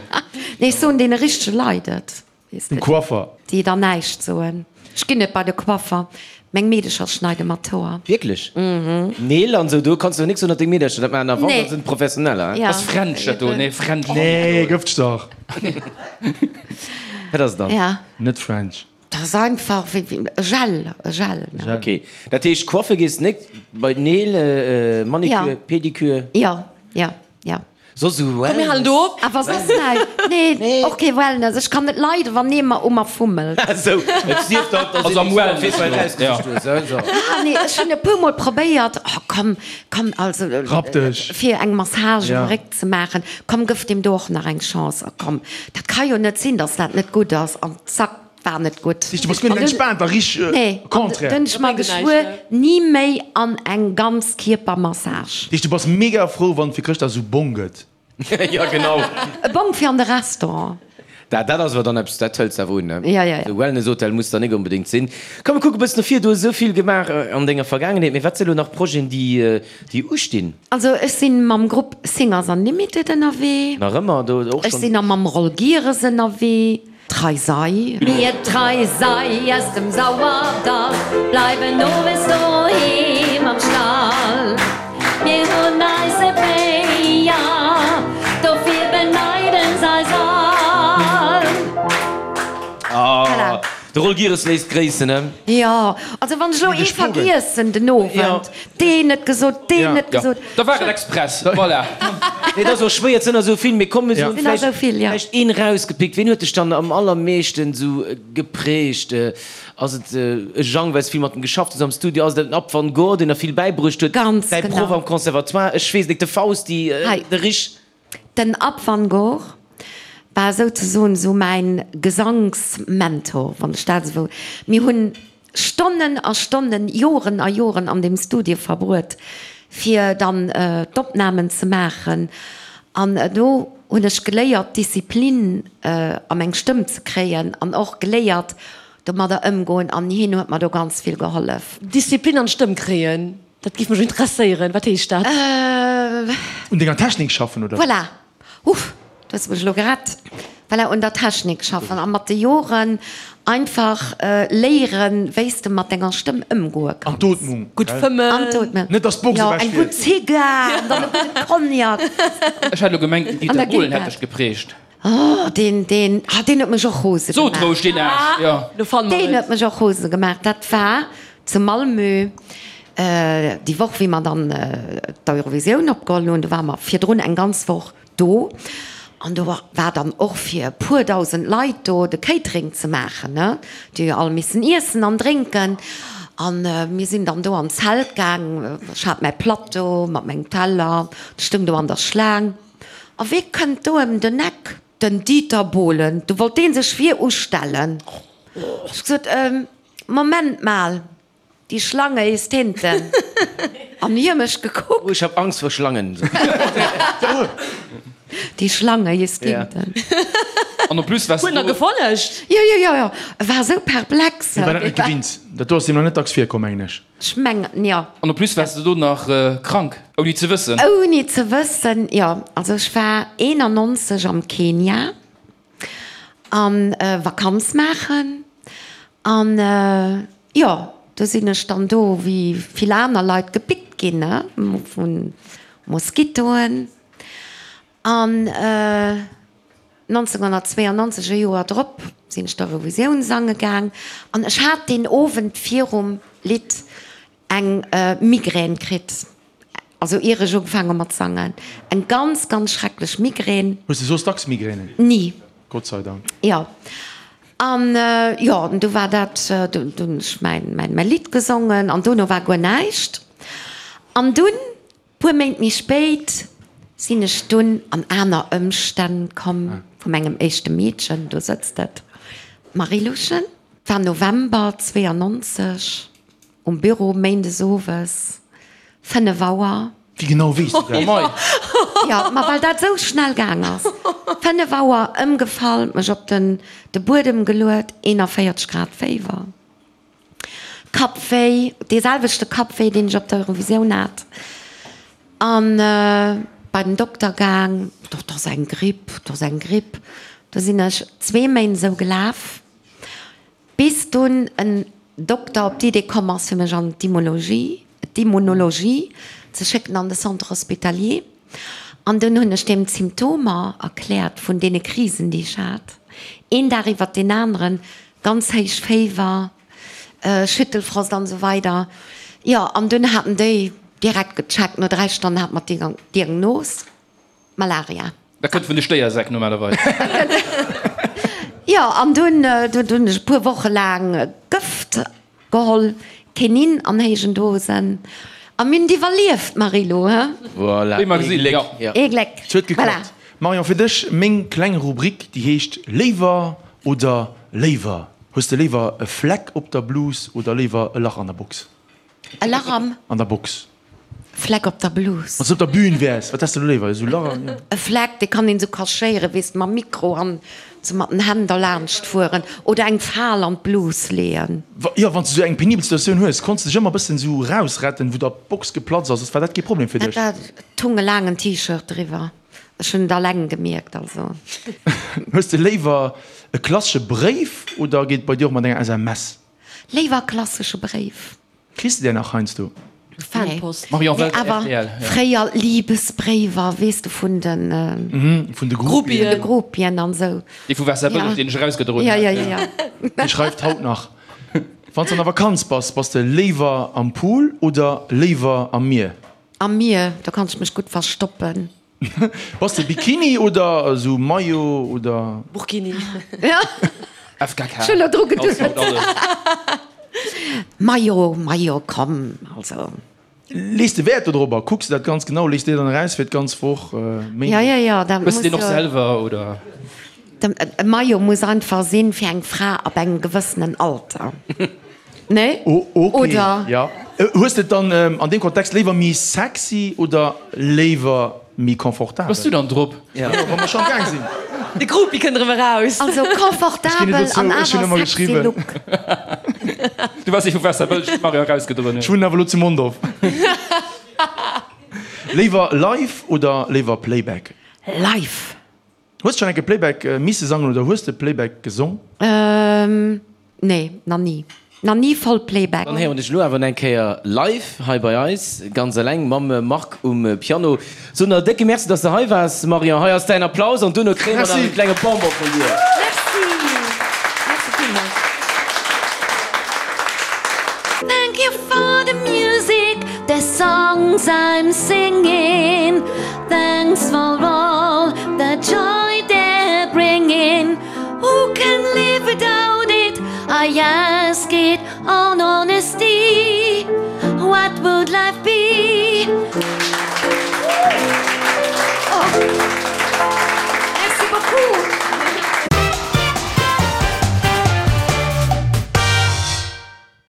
Nee, ech soen deene richtege Leit et, weess Dem de. Coiffer. Déi dann näischt soen. Ech ginn net bei de Coiffer. Meng Meedecher schneide mer d'Hoer. Wierklech? Neel an sou, do kanns du nix soen, datt deng Meedercher dat maachen, a wann, Nee. dann sinn et Professioneller, he? Ja. Ass French dat do? Nee, French. Nee, gëfteg dach. Wat ass et dann? Ja. Net French. Dat ass einfach wéi wéi e Gel, e Gel, ne? Ok, dat heescht coiffe gees nik, bei d'Neel, Manicure, Ja. Pedicure? Ja, ja, ja. Soss esou Komm mir Wellness? halen do op. Awer soss näischt. Nee, och kee Wellness. Ech kann net leiden, wann ee mer u mer fummelt. Esou, et sief dann, dass Also am een Wellness fir elo, ausgesicht hues, he, so. Ah nee, ech hunn e puer mol probéiert, oh komm, komm, also Rapp dech. fir eng Massage um Ja. Réck ze maachen, komm gëff deem do och nach eng Chance, a komm, dat ka jo net sinn, dass dat net gutt ass, an zack, war net gutt. Du bass guer net entspaant a richteg Nee, an contraire. dunn ech mer geschwuer, ni méi an eng Ganzkierpermassage. Du bass mega frou, wann et fir Chrëschtdag esou Bong gëtt. Jo, genau. E Bong fir an de Restaurant. Dat, dat ass awer dann eppes, dat hëls de awer un, ne? Ja, ja, ja. Esou Wellness-Hotel muss dann nik onbedéngt sinn. Komm, mir kucke e bëssen no vir. Du hues esou vill gemaach an denger Vergaangenheet, mee wat si elo nach Projeten, déi, déi ustinn? Also ech sinn mam Grupp Singers Unlimited ënnerwee. Nach ëmmer do och Ech schonn? sinn a mam Roll Gieres ënnerwee. Trei sei. Mir trei sei aus dem Sauerdall, bleiwen owes doheem am Stall. Mir hunn eise Béier, dofir beneiden s'eis all. Ah, de Roll Gieres léisst gréissen, ne? Jo, also wann ech elo ee vergiessen den Owend, Deen net gesot, deen net gesot. Da war et express, voilà. Nee, et ass och schwéier, et sinn der esou vill. Mee komm, mir soen Sinn der esou vill, ja. vläicht een erausgepickt. Ween huet dech dann am allermeeschten esou geprägt? Ass et e Jang, well s vill mat em geschafft hues am Studio? Ass et den Ab van Goor, deen der vill bäibruecht huet? Ganz Däi genau. Proff am Conservatoire? Ech weess et nik. De Fausti, Hei. de Rich? Den Ab van Goor. War souzesoen esou mäin Gesanksmentor, wann ech dat esou. Mir hunn Stonnen a Stonnen, Joren a Joren an deem Studio verbruet, fir dann d'Opnamen ze maachen. An do hunn ech geléiert, Disziplin a meng Stëmm ze kréien an och geléiert, domadder ëmgoen. An hien huet mer do ganz vill gehollef. Disziplin an d'Stëmm kréien, dat géif mech interesséieren. Wat heescht dat? Un denger Technik schaffen, oder? Voilà! Uff, du hues mech elo gerett. Voilà, un der Technik schaffen a mat de Joren einfach léieren, wéi s de mat denger Stëmm ëmgoe kanns. An d'Ootmung. Gutt fëmmen. An d'Ootmung. Net dass d'Box ewech fiert. Jo, eng gutt Zigar an dann e gudde Cognac. Ech hat elo gemengt, den Dieter Bohlen hätt dech geprägt. Oh, deen, deen, ah, deen huet mech och rose gemaach. Sot roueg, deen Aarsch, jo. Lo fanne mer et. Deen huet mech och rose gemaach. Dat war zu Malmö, déi Woch, wéi mer dann d'Eurovisioun opgeholl hunn. Do ware mer virdrun eng ganz Woch do. An do war dann och fir e puer dausend Leit do de Catering ze maachen, ne. Déi hu jo all missen iessen an drénken. A mir sinn dann do an d'Zelt gaang. Ech hat mäi Plateau mat mengem Teller, ech stoung do an der Schlaang. A wee kënnt do ëm den Eck? Den Dieter Bohlen. Du wollt dee sech vir ustellen. Ech gesot, Moment mal, die Schlange ist hinten. An hie mech gekuckt. Oh, ich hab Angst vor Schlangen. Die Schlange ist hinten. An en plus waars du. Huet en der gefollegt? Jo, jo, jo, jo. E war esou perplex. Hie war dat net gewinnt. Dat do ass him nach net dacks virkomm, mengen ech. Ech mengen, jo. An en plus waars de do nach krank, ouni ze wëssen. Ouni ze wëssen, jo. Also ech war 91 am Kenia an Vakanz maachen an jo, do sinn ech dann do wéi vill aner Leit gepickt ginn, ne, vu Moskitoen. An 1992, e Joer drop, sinn ech d'Eurovisioun sange gaang an ech hat deen Owend virum Lidd eng Migrän kritt, also ier ech ugefaang hu mat sangen, eng ganz, ganz schrecklech Migrän. Hues de soss dacks Migränen? Ni. Gott sei Dank. Jo. An jo, an du war dat, du hunn ech mäin, mäin Lidd gesongen an dono war guer näischt. An dunn Puer Méint méi spéit sinn ech dunn an aner Ëmstänn komm vu mengem éischte Meedchen, do sëtzt et, d'Marie-Louchen. Et war November 92, um Büro, méindes owes, 5 Auer. Wéi genau weess du dat? Jo, ma well dat esou schnell gaang ass. 5 Auer, ëmgefall, mech op den de Buedem geluet, 41 Grad Féiwer. Kappwéi, dee selwechte Kappwéi, deen ech op der Eurovisioun hat, an bei den Dokter gaang, dat ass eng Gripp, dat ass eng Gripp. Du sinn ech zwee Méint esou gelaf, bis dunn en Dokter op d'Idee komm ass, fir mech an d'Immunologie, d'Immunologie ze schécken an de Centre hospitalier. An dunn hunn ech deem d'Symptomer erkläert vun deene Krisen, déi ech hat, een Dag iwwert deen aneren, Ganz héich Féiwer, Schüttelfrost an esou weider. Jo, an dunn haten déi direkt gecheckt, no 3 Stonnen hat mer d'Diagnos, Malaria. Dat kënnt vun de Stéiersäck normalerweis. Jo, an dunn hunn ech e puer Woche laang Gëft Geholl, Kenin an héijen Dosen, a mir hunn et iwwerlieft, Marie-Lou, he? Voilà, Wéi mer gesinn, ee Gléck, jo. ja. Ee Gléck, Et huet voilà. geklappt. Marion, fir dech meng kleng Rubrik, déi heescht Léiwer oder léiwer. Hues de léiwer e Fleck op der Blus oder léiwer e Lach an der Box? E Lach am? An der Box. Fleck op der Blus. Wann s de op der Bühn wäers, wat häss de do léiwer? Esou Lach an. E Fleck, dee kann een esou cachéieren, weess de, mam Mikro an esou mat den Hänn derlaanscht fueren oder eng Fal an d'Blus leeën. Jo, wann s de esou eng penibel Situatioun hues, konns de dech ëmmer e bëssen esou rausretten, wou der d'Box geplatzt ass. War dat kee Problem fir dech? Dat war, et hung e laangen T-Shirt driwwer. Ech hunn et alleng gemierkt, also. Hues de léiwer e klassesche Bréif oder geet et bei dir och mat enger SMS? Léiwer e klassesche Bréif. Kriss de där nach heiansdo? Fanpost. Marion Nee, Welter, awer rtl, ja. fréier Liebesbréiwer, weess de, vun den. Vun de Groupien. Vun de Groupien an esou. Dee vu Waasserbëlleg, deen ech erausgedroen Ja, hat. ja, ja, ja. Dee schreift haut nach. Wann s de an der Vakanz bass, bass de léiwer am Pool oder léiwer am Mier? Am Mier, do kann ech mech gutt verstoppen. Bass de Bikini oder esou Maillot oder? Burkini. FKK. Ech hunn elo dru geduet. Haut alles. Maillot, Maillot, komm, also. Lees de Wäert dodrop a kucks de dat ganz genau? Lees de dann eraus fir d'ganz Woch Méindeg? Ja, ja, ja, dat Hues de muss deen och jo. selwer oder? E Maillot muss einfach sinn fir eng Fra ab engem gewëssenen Alter. Nee? Oh, ok. Oder? Ja. Hues de et dann an deem Kontext léiwer méi sexy oder léiwer méi confortabel? Bass du dann drop? Jo, wa mer scho am Gaang sinn. De Groupie kënnt erëm eraus. Also confortabel an awer sexy Look. Du waars ee vu Waasserbëlleg, wou d'Marion erausgedroen huet. Ech wunnen awer elo zu Mondorf. Léiwer live oder léiwer Playback? Live. Hues de schon eng Kéier Playback misse sangen oder hues de Playback gesong? Nee, na ni. Na ni voll Playback. Dann héieren dech elo awer eng Kéier live hei bei eis, ganz eleng mam Marc um Piano. Soen der e décke Merci, dass de hei waars, Marion. Hei ass däin Applaus an duerno kréie mer nach e klenge Bonbon vun dir. Merci. Merci villmools. Thank you for the music, the songs I'm singing. Thanks for all the joy they're bringing Who can live without it? I ask it on honesty What would life be?